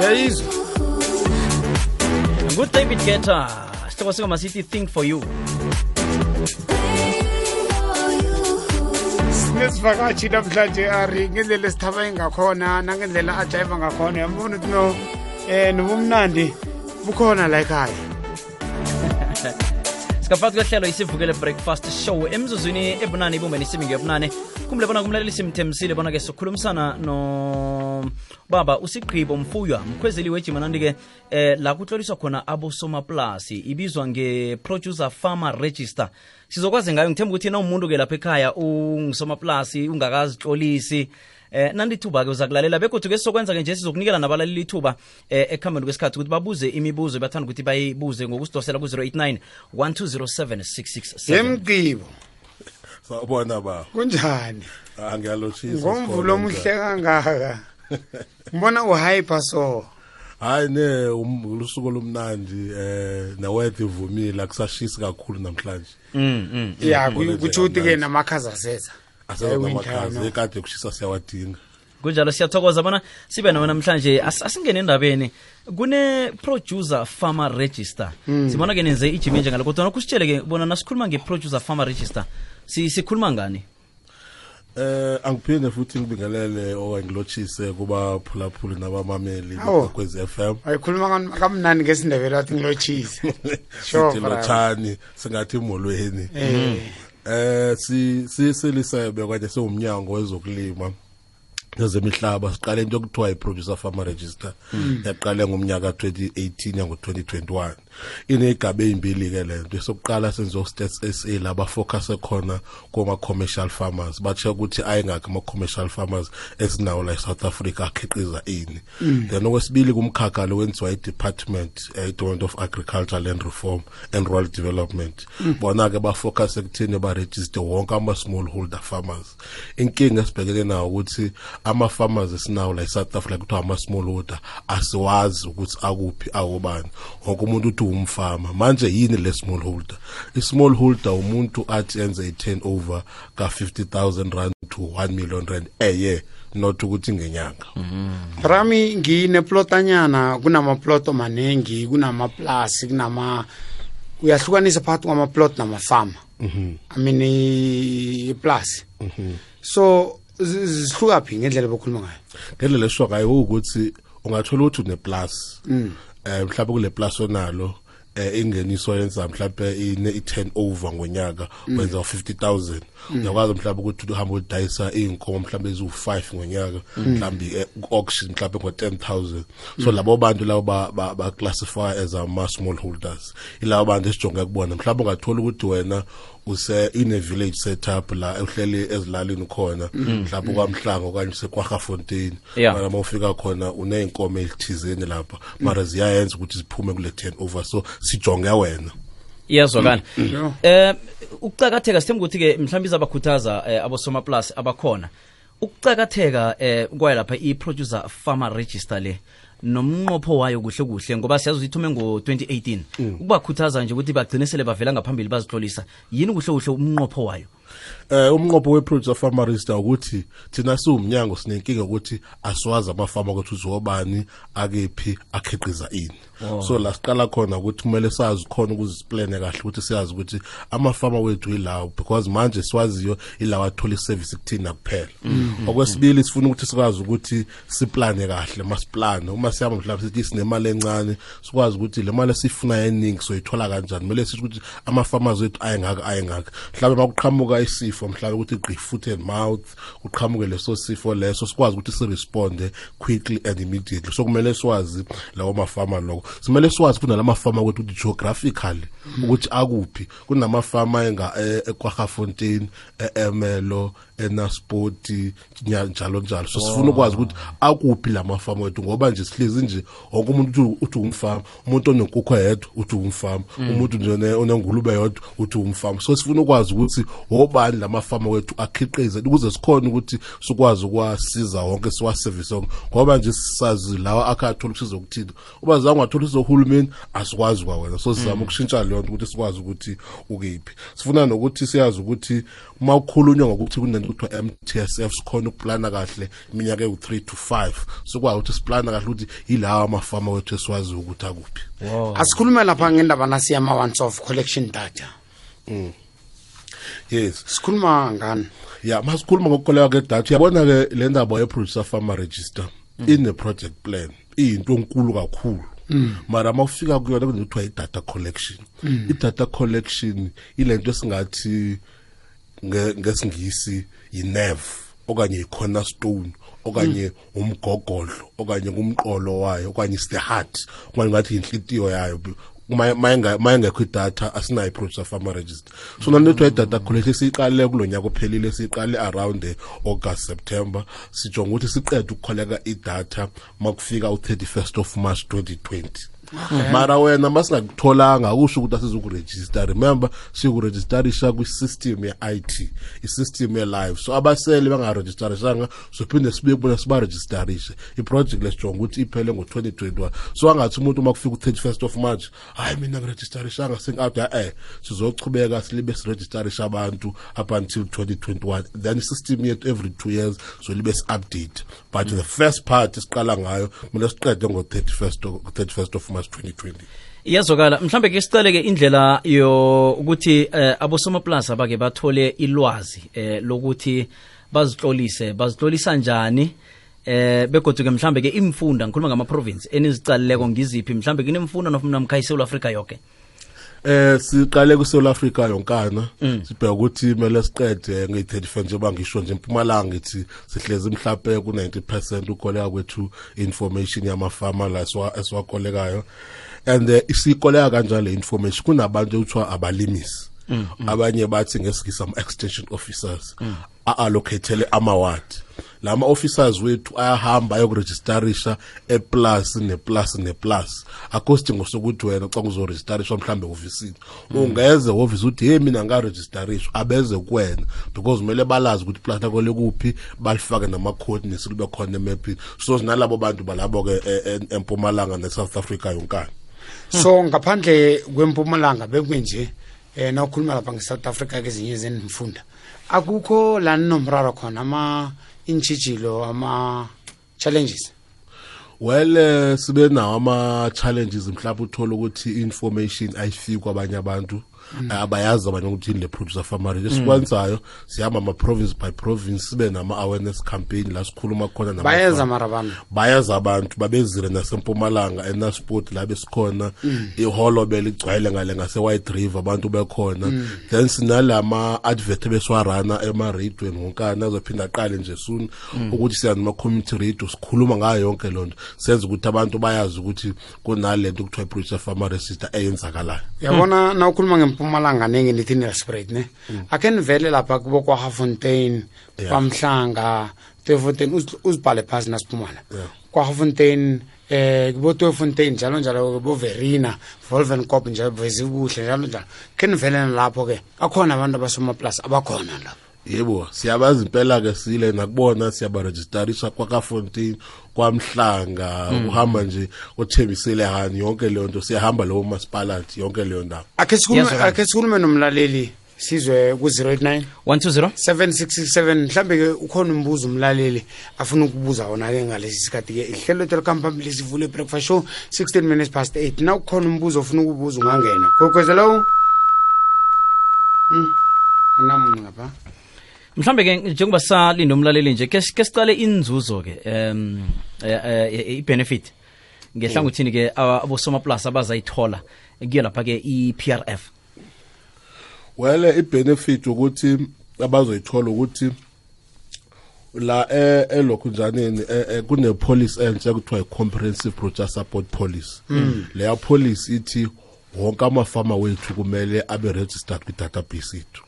uyayizwa Good David Guetta sihloko singoma sithi Think For You. Nesivakashi namhlanje ari ngendlela esithaba engakhona nangendlela ajayiva ngakhona yambona ukuthi no nobumnandi bukhona la ekhaya. Sikafaka kuhlelo isivukele breakfast show emzuzwini ebunane ibumbeni isimini yobunane kumle bona kumlaleli simthemsile bona ke sokhulumisana no baba uSigqibo Mfuywa mkhwezeli wejimanandi ke la kutloliswa khona abosomaplasi ibizwa nge-producer farmer register. Sizokwazi ngayo ngithemba ukuthi na umuntu ke lapha ekhaya ungisomaplasi ungakazitlolisi nandithuba ke uzakulalela begodwa ke sokwenza ke nje sizokunikela nabalaleli ithuba ekhambeni kwesikhathi ukuthi babuze imibuzo bathanda ukuthi bayibuze ngokusidosela ku 089 1207667. Yemgqibo sawubona ba kunjani angiyalochisa ngomvulo omuhle kangaka ngibona uhyper so hayi ne ulusuku lomnandi nawethi ivumile akusashisi kakhulu namhlanje ya kuthi uthi ke namakhaza seza asenamakhaza ekade kushisa siyawadinga kunjalo siyathokoza bona sibe nawe namhlanje asingene endabeni kune producer farmer register sibona ke nenze ijimi nje ngalokho kodwa kusitshele ke bona nasikhuluma nge-producer farmer register sikhuluma ngani angiphinde futhi ngibingelele owangilochise kuba phulaphuli nabamameli kwezi FM ayikhuluma kamnani ngesindebele athi ngilochise sure lothani singathi molweni silisebe kade sewumnyango wezokulima nezemihlaba siqale into okuthiwa i-producer farmer register yaqala ngomnyaka 2018 yango 2021 inegaba ezimbili ke lento sokuqala senzo Stats SA laba focus ekhona kuma commercial farmers batsho ukuthi ayingakho ama commercial farmers esinawo la eSouth Africa akhiqiza ini then okwesibili kumkhakha lo wenziwa i-Department of Agriculture, Land Reform and Rural Development bona ke ba focus ekuthini ba register wonke ama smallholder farmers. Inkinga esibhekene nawo ukuthi ama farmers esinawo la eSouth Africa kuthiwa ama smallholder asiwazi ukuthi akuphi awobani wonke umuntu uthi umfama manje yini le smallholder. I-smallholder umuntu athi enze i-turnover ka 50,000 rand to 1 million rand year not ukuthi ngenyanga. Rami ngine plotanyana kunama ploto manengi kunama plus kunama uyahlukanisa phakathi kwama plot nama farm I mean plus so zihluka phi ngendlela bokhuluma ngayo ngendlela esho ngayo ukuthi ungathola ukuthi une plus mhlawumbe kule plus onalo ingeniso yenza mhlawumbe i-turnover ngonyaka wenza 50,000 uyakwazi mhlawumbe ukuthi uhamba udayisa inkomo mhlawumbe ezu5 ngonyaka mhlawumbe auction mhlawumbe ngo10,000 so labo bantu labo ba classify as ama smallholders ilabo bantu esijonge kubona mhlawumbe ungathola ukuthi wena in a village setup la uhleli ezilalini khona mhlawumbe kwaMhlanga okanye seKwaGafontein mara mawufika khona uneinkomo ezithizeni lapha mara ziyayenza ukuthi ziphume kule turnover so sijonge wena iyazwakala ukucakatheka sithemba ukuthi ke mhlawumbe izabakhuthaza abosoma plus abakhona ukucakatheka kwaye lapha i-producer farmer register le nomnqopho wayo kuhle kuhle ngoba siyazi ukuthi ithume ngo-2018 ukubakhuthaza nje ukuthi bagcine sele bavela ngaphambili bazihlolisa yini kuhle kuhle umnqopho wayo umnqopho we-producer farmer register ukuthi thina siwumnyango sinenkinga ukuthi asiwazi amafama ukuthi uzobani akephi akhiqiza ini so la siqala khona ukuthi kumele sazi khona ukuzisplane kahle ukuthi siyazi ukuthi amafama wethu ilawo because manje siwaziyo ilawo athola iservice kuthina kuphela okwesibili sifuna ukuthi sikwazi ukuthi siplane kahle masiplane uma siyaba mhlawumbe sithi sinemali encane sikwazi ukuthi le mali esifuna eningi soyithola kanjani kumele sithi ukuthi ama-farmers wethu ayengaka mhlawumbe makuqhamuka isifo mhlawumbe ukuthi igqi foot and mouth uqhamuke leso sifo leso sikwazi ukuthi siresponde quickly and immediately so kumele siwazi lawo mafama lokho simele siwazi kuna lamafama ukuthi geographically ukuthi akuphi kunamafama eKwaGafontein eMelo eNasport njalo njalo so sifuna ukwazi ukuthi akuphi lamafama wethu ngoba nje sihlezi nje wonke umuntu uthi umfama umuntu onenkukhu yedwa uthi umfama umuntu nje onengulube yodwa uthi umfama so sifuna ukwazi ukuthi obani lamafama wethu akhiqize ukuze sikhona ukuthi sikwazi ukwasiza wonke siwaservice ngoba nje sisazi lawa akathola usizo ukuthini uba zange wathola usizo uhulumeni asikwazi kwa wena so sizama ukushintsha leyo ukuthi sikwazi ukuthi ukephi sifuna nokuthi siyazi ukuthi uma ukhulunywa ngokuthi kunento kuthiwa MTSF sikhona ukuplana kahle iminyaka ewu3 to 5 sokwazi ukuthi siplana kahle ukuthi yilawa amafama wethu esiwazi ukuthi akuphi. Asikhulume lapha ngendaba nasi yama once off collection data. Yes, sikhuluma ngani? Yeah, masikhuluma ngokukoleka ke data. Uyabona ke le ndaba ye producer farmer register in the project plan into enkulu kakhulu. Mara mawufika kuyona kunethiwa i-data collection. I-data collection ilento esingathi ngesingisi yi-nerve okanye i-cornerstone okanye umgogodlo okanye kumqolo wayo okanye is the heart okanye ngathi inhlitiyo yayo. Mayengekho idatha asinayo i-producer farmer register. So nanethiwa i-data collection siyiqale kulonyaka ophelile, siyiqale around August September, sijonga ukuthi siqede ukukholeka idatha makufika u31st of March 2020. Mara wena masingakutholanga akusho ukuthi asizokuregister. Remember sikuregisterisha kwi-system ye-IT, i-system ye-live. So abasele bangaregisterishanga sophinde sibuye kubona sibaregisterishe. I-project lesijonga ukuthi iphele ngo-2021. So angathi umuntu makufika u-31st of March hayi mina ngiregisterishanga sengi-out sizochubeka silibe siregisterisha abantu up until 2021. Then i-system yethu every 2 years so libe si-update. But the first part isiqala ngayo kumele siqede ngo-31st of March 2020. Iyazokala mhlambe ke sicale ke indlela ukuthi abosomaplasa bake bathole ilwazi lokuthi bazitlolisa njani begodwa ke mhlambe ke imfunda ngikhuluma ngama province enizicaleleko ngiziphi mhlambe kunemfunda nofuna mkhaya eSouth Africa yonke. Siqale ku South Africa yonkana sibheka ukuthi kumele siqede nge-35 njengoba ngisho nje eMpumalanga ngithi sihlezi mhlawumbe ku-90% ukoleka kwethu information yamafama la esiwakolekayo and isikoleka kanjalo le information kunabantu ekuthiwa abalimisi abanye bathi ngesikisa ama-extension officers a-allocatele ama-ward. Lama officers wethu ayahamba ayokuregisterisha eplus neplus akosidingo sokuthi wena xa uzoregisterisha mhlambe ofisini ungeze office uthi hey mina ngaregisterishwa abeze kuwena because kumele balazi ukuthi plus lakho lekuphi balifake nama coordinates kube khona emapini. So sinalabo bantu balabo ke eMpumalanga neSouth Africa yonkana. So ngaphandle kweMpumalanga bekwenje na ukhuluma lapha ngeSouth Africa kezinye zenifunda akukho la nomraro khona ama inchijilo ama challenges. Well sibe nawo ama challenges mhlawumbe uthola ukuthi information ayifiki kwabanye abantu abayazi abanye ukuthi le producer farmer esikwenzayo sihamba ama province by province sibe nama awareness campaign la sikhuluma khona nama bayaza abantu babezire naseMpumalanga eNasport la besikhona iHolobele igcwele ngale ngase White River abantu bekhona then sinalama advert beswarana ema radio ngonkana azophinda aqale nje soon ukuthi siyanima community radio sikhuluma ngayo yonke lonto senza ukuthi abantu bayazi ukuthi kunalento ukuthiwa producer farmer register eyenzakalayo. Yabona na ukhuluma ngeMpumalanga nenge nithi spread ne akenivele lapha kubo kwa Hafontein kwaMhlanga Tefontein uzibhale phasi nasiphumala kwa Hafontein kubo Tefontein njalo kubo Verina Wolvenkop njalo bezibuhle njalo kenivele lapho ke akhona abantu abasoma plus abakhona lapho. Yebo siyabazi impela ke sile nakubona siyabaregisterisha kwa Kafontein kwaMhlanga uhamba nje othembisele hani yonke leyo nto siyahamba lo municipality yonke leyo ndawo. Ake sikhulume nomlaleli sizwe ku 089 120 7667 mhlambe ke ukhona umbuzo umlaleli afuna ukubuza wona ke ngalesi sikhathi ke ihlelo telecom lisivule breakfast show 16 minutes past 8 na ukhona umbuzo ofuna ukubuza ungangena gokwezelo namunye ngapha mhlambe ke njengoba salinda umlaleli nje ke sicale inzuzo ke i-benefit ngehlangothini ke abosoma plus abazayithola kuyo lapha ke i-PRF. Well i-benefit ukuthi abazoyithola ukuthi la elokhunjaneni kune policy entsha kuthiwa comprehensive producer support policy. Leya policy ithi wonke amafama wethu kumele abe registered kwi-database yethu.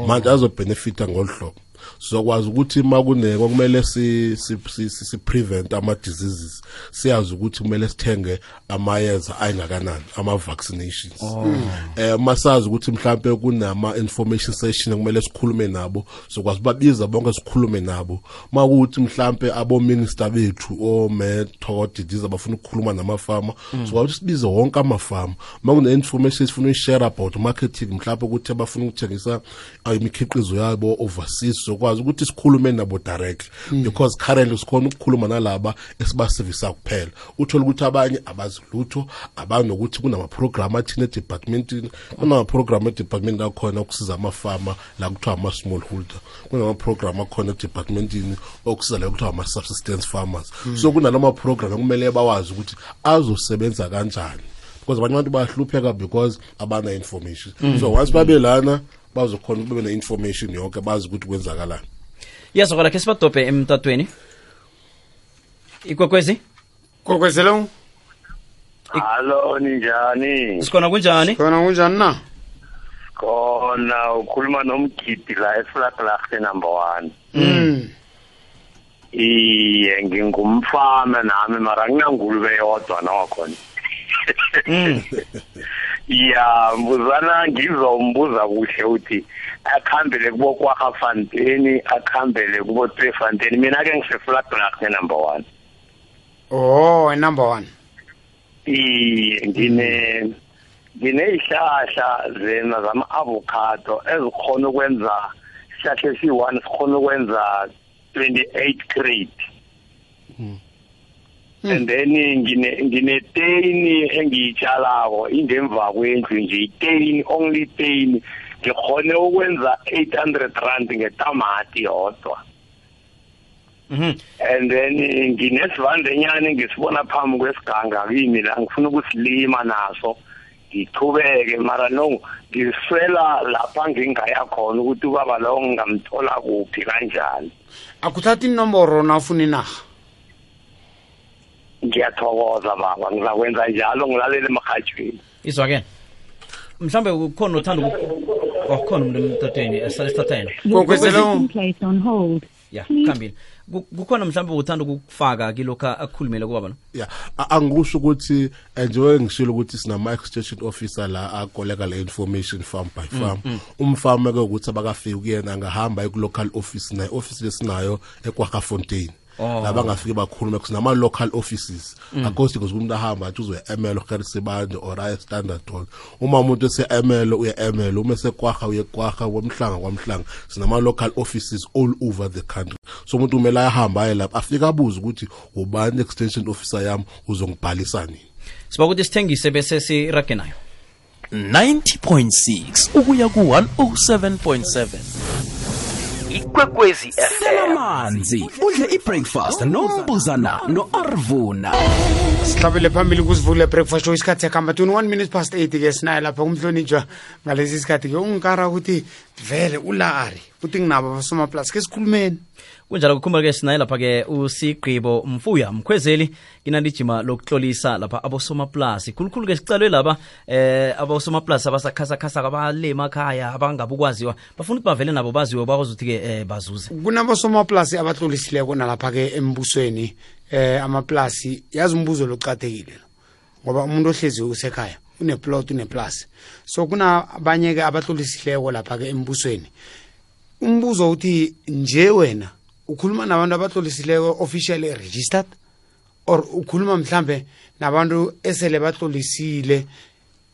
Manje azobenefita ngolhlobo sizokwazi ukuthi makune kumele si prevent ama diseases siyazi ukuthi kumele sithenge amayeza ayingakanani ama vaccinations masazi ukuthi mhlambe kunama information session kumele sikhulume nabo sokwazi babiza bonke sikhulume nabo makuthi mhlambe abo minister bethu o Method disease abafuna ukukhuluma namafama sokwazi sibize wonke amafama makune information sifuna share about marketing mhlambe ukuthi abafuna ukuthengisa imikhiqizo yabo overseas sizokwazi ukuthi sikhulume nabo direct because currently sikhona ukukhuluma nalaba esibasevisa kuphela uthola ukuthi abanye abazi lutho abanokuthi kunama program athina departmentini kunama program department akhona ukusiza amafama la kuthiwa ama smallholder kunama program akhona departmentini okusiza la kuthiwa ama subsistence farmers so kunalama program kumele bawazi ukuthi azosebenza kanjani because abanye abantu bahlupheka because abana information so once babelana bazokhona ukube na information yonke bazi ukuthi kwenzakalani yazokala ke sibadope emtatweni ikwekwezi kokwezelo Hallo ninjani sikhona kunjani na khona ukhuluma nomgidi la eFlatlacht number 1 iye ngingumfama nami mara nginangulube yodwa nakhona ya mbuzana ngizombuza kuhle uthi akhambele kubo kwaFanteni akhambele kubo Tweefontein mina ke ngiseflatlacht number 1 oh number 1 ngine ihlahla zena zama avocado ezikhona ukwenza isihlahla esi1 sikhona ukwenza 28 crate and then ngine teni engiyitshalako indemva kwendlu nje iteni only teni ngikhone ukwenza 800 rand ngetamati yodwa and then nginesivandanyana ngisibona phambi kwesiganga kimi la ngifuna ukusilima naso ngithubeke mara no ngiswela lapha ngingaya khona ukuthi ubaba lo ngamthola kuphi kanjani akuthathi inomboro nafuna inaga ngiyathokoza baba ngizakwenza njalo ngilalele emahajweni izwa ke mhlambe ukhona uthanda ukukhona umuntu emtatweni esalithathena kokwezelo ya khambile kukhona mhlambe uthanda ukufaka kilokho akukhulumele kubaba no yeah angisho ukuthi njengoba ngishilo ukuthi sinama extension officer la akoleka le information farm by farm umfama ke ukuthi abakafika kuyena angahamba ku local office na office lesinayo eKwaGafontein laba ngafike bakhuluma kusinama local offices akosi kuzokumuntu ahamba athi uzoya Emelo Gerisebande or Aya Standard Hall uma umuntu ese Emelo uya Emelo uma seKwaga uye Kwaga kwamhlanga sinama local offices all over the country so umuntu umela ayahamba aye lapha afika abuza ukuthi ubani extension officer yami uzongibhalisa nini siba ukuthi sithengise bese sirage nayo 90.6 ukuya ku 107.7 Ikwekwezi FM manzi udle ibreakfast nombuzana noArvuna sihlabele phambili kusivule breakfast show isikhathi yakamba 21 minutes past 8 ke sinaye lapha kumhlonitshwa ngalesi sikhathi ke ungikara ukuthi vele ulari uthi nginabo abasoma plus ke sikhulumeni kunjalo kukhumbuka ke sinaye lapha ke uSigqibo Mfuya Mkhwezeli inandijima lokuhlolisa lapha abosoma plus khulukhulu ke sicalwe laba abosoma plus abasakhasa abalema ekhaya abangabukwaziwa bafuna ukuthi bavele nabo baziwe bakwazi ukuthi ke bazuze kunabosoma plus abahlolisileko nalapha ke embusweni amaplasi yazi umbuzo loqathekile ngoba umuntu ohlezi usekhaya uneplot uneplus so kuna abanye ke abahlolisileko lapha ke embusweni umbuzo uthi nje wena ukhuluma nabantu abahlolisileko officially registered or ukhuluma mhlambe nabantu esele bahlolisile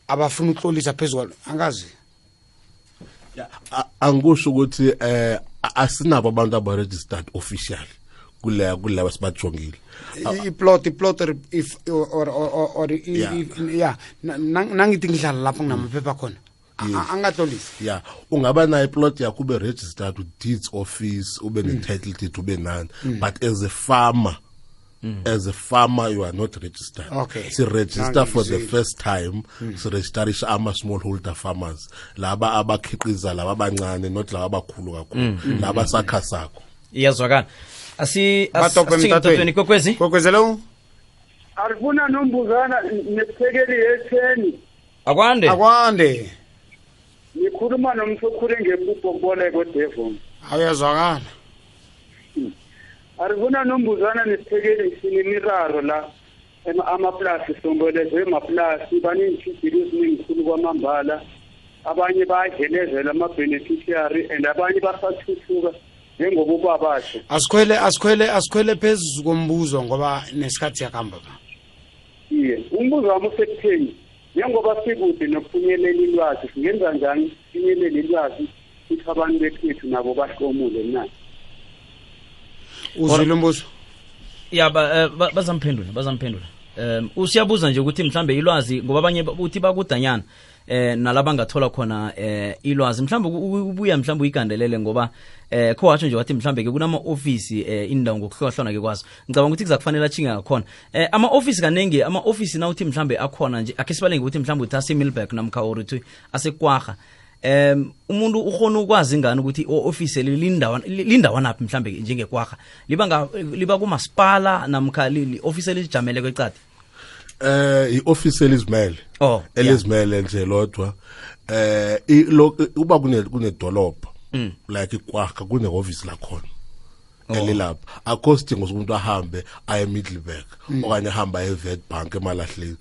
abafuna ukuhlolisa phezulu angazi angisho ukuthi asinabo abantu aba registered officially kule basibajongile iplot if or yeah nangithi ngidlala lapho nginamaphepha khona angahlolisi yeah ungaba na iplot yakho ube registered with deeds office ube ne title deed ube none but as a farmer you are not registered. Okay. So register for the first time. So registerisha ama smallholder farmers. Laba abakhiqiza laba abancane not laba abakhulu kakhulu. Laba sakhasakho. Iyazwakala. Asithathweni kokwezelo Arvuna nombuzana nesithekeli yetheni. Akwande. Ngikhuluma nomsokhule ngempupho kodevon. Ayazwakala. Arvuna nombuzana nesithekeli sinimiraro la amaplasi sombelezwe amaplasi baninchibhilo eziningikhulu kwamambala abanye bayadlelezela ama-beneficiary and abanye basathuthuka njengoba ubabasho asikhwele phezulu kombuzo ngoba nesikhathi yakamba ba iye umbuzo wami usekutheni njengoba sikude nokufinyelela ilwazi singenza njani sifinyelele ilwazi futhi abantu bekhethu nabo bahlomule na uzwile umbuzo ya bazamphendula usiyabuza nje ukuthi mhlambe ilwazi ngoba abanye uthi bakudanyana nalaba ngathola khona ilwazi mhlambe ubuya mhlambe uyigandelele ngoba kho watsho nje wathi mhlambe ke kunama office indawo ngokuhlohlana ke kwazo ngicabanga ukuthi kuzakufanele achinga ngakhona ama office kanenge ama office na uthi mhlambe akhona nje akhe sibalenge ukuthi mhlambe uthi ase Millback namkha urithi asekwaga umuntu ukhona ukwazi ngani ukuthi office lindawana naphi mhlambe njengekwaga liba kumasipala namkha office lijamele kwecadi i-office elizimele elizimele nje lodwa uba kunedolobha like ikwakha kune-office lakhona elilapha akho sidingo sokumuntu ahambe aye Middelburg okanye ahambe aye Witbank emalahleni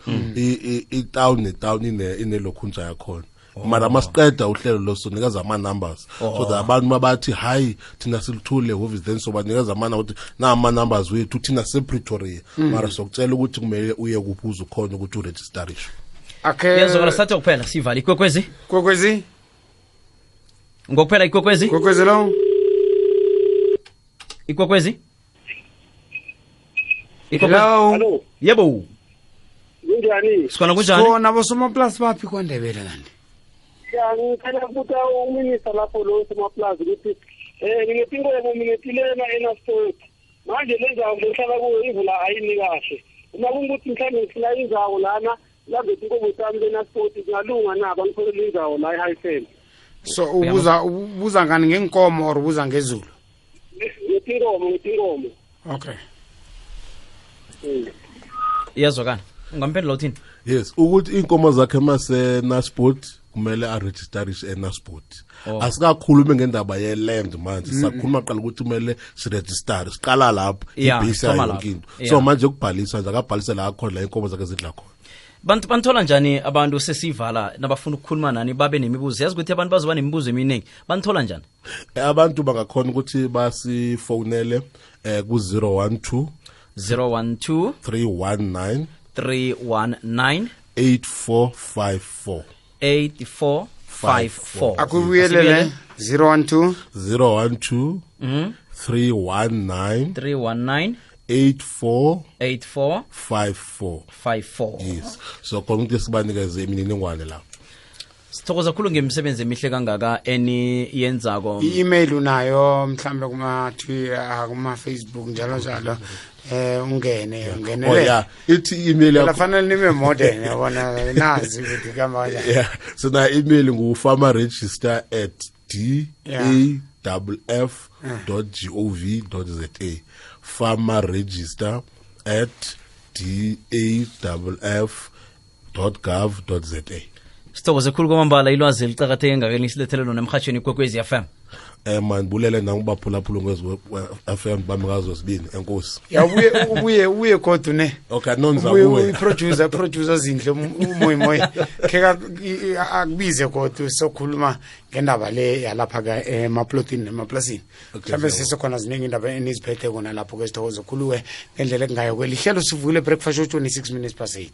itown netown inelokhunja yakhona mara masiqeda uhlelo losonikeza ama-numbers so that abantu mabathi hayi thina silithule office then so banikeza ukuthi nama-numbers wethu thina sePretoria mara sokutshela ukuthi kumele uye kuphi uzukhona ukuthi uregistarishe yazokala sathe kuphela sivala ikwekwezi ngokuphela ikwekwezi lo ikwekwezi hello yebo kunjani sikona kunjani kona bosomaplasi baphi kwaNdebele kanti ya ngicela ukuthi uminister lapho lo somaplaza ukuthi ngingetinkomo ngingetilena eNasport manje lenzawo lehlala kuyo ivula ayini kahle uma kungukuthi mhlawumbe ngifuna inzawo lana lambe inkomo zami leNasport zingalunga na bangitholela inzawo la eHighfield so ubuza ngani ngenkomo or ubuza ngezulu ngetinkomo okay yazokana ungamphendula uthini yes ukuthi inkomo zakhe maseNasport kumele aregistarishe eNasport asikakhulumi ngendaba yeland manje sakhuluma qala ukuthi kumele siregister siqala lapho ibase yonkinto so manje ukubhalisa nje akabhalise la khona la inkomo zakhe zidla khona banthola njani abantu sesivala nabafuna ukukhuluma nani babe nemibuzo yazi ukuthi abantu bazoba nemibuzo eminingi banthola njani abantu bangakhona ukuthi basifonele ku 012 319 8454 akubuyelele 012 319 8454 yes so khona ukuthi sibanikeze imininingwane la sithokoza kakhulu ngemsebenzi emihle kangaka yenzako i-email unayo mhlambe kuma-Twitter kuma-Facebook njalo ungenele ithi email yakho kufanele nibe modern yabona nazi ukuthi kama kanjani so na email farmerregister@daff.gov.za farmerregister@daff.gov.za sithokoze khulu kwamambala ilwazi licakatheke ngakeni silethele lona emhatshweni ikwekwezi FM man bulele nangibaphulaphula ngezwe FM bamikazo sibini enkosi ubuye kodwa ne okay nonza kuwe producer zindle umoyi kheka akubize kodwa sokhuluma ngendaba le yalapha ka emaplotini nemaplasini mhlawumbe sisekhona ziningi indaba eniziphethe kona lapho ke sithokoze khuluwe ngendlela engayo kwelihlelo sivule breakfast show 26 minutes past 8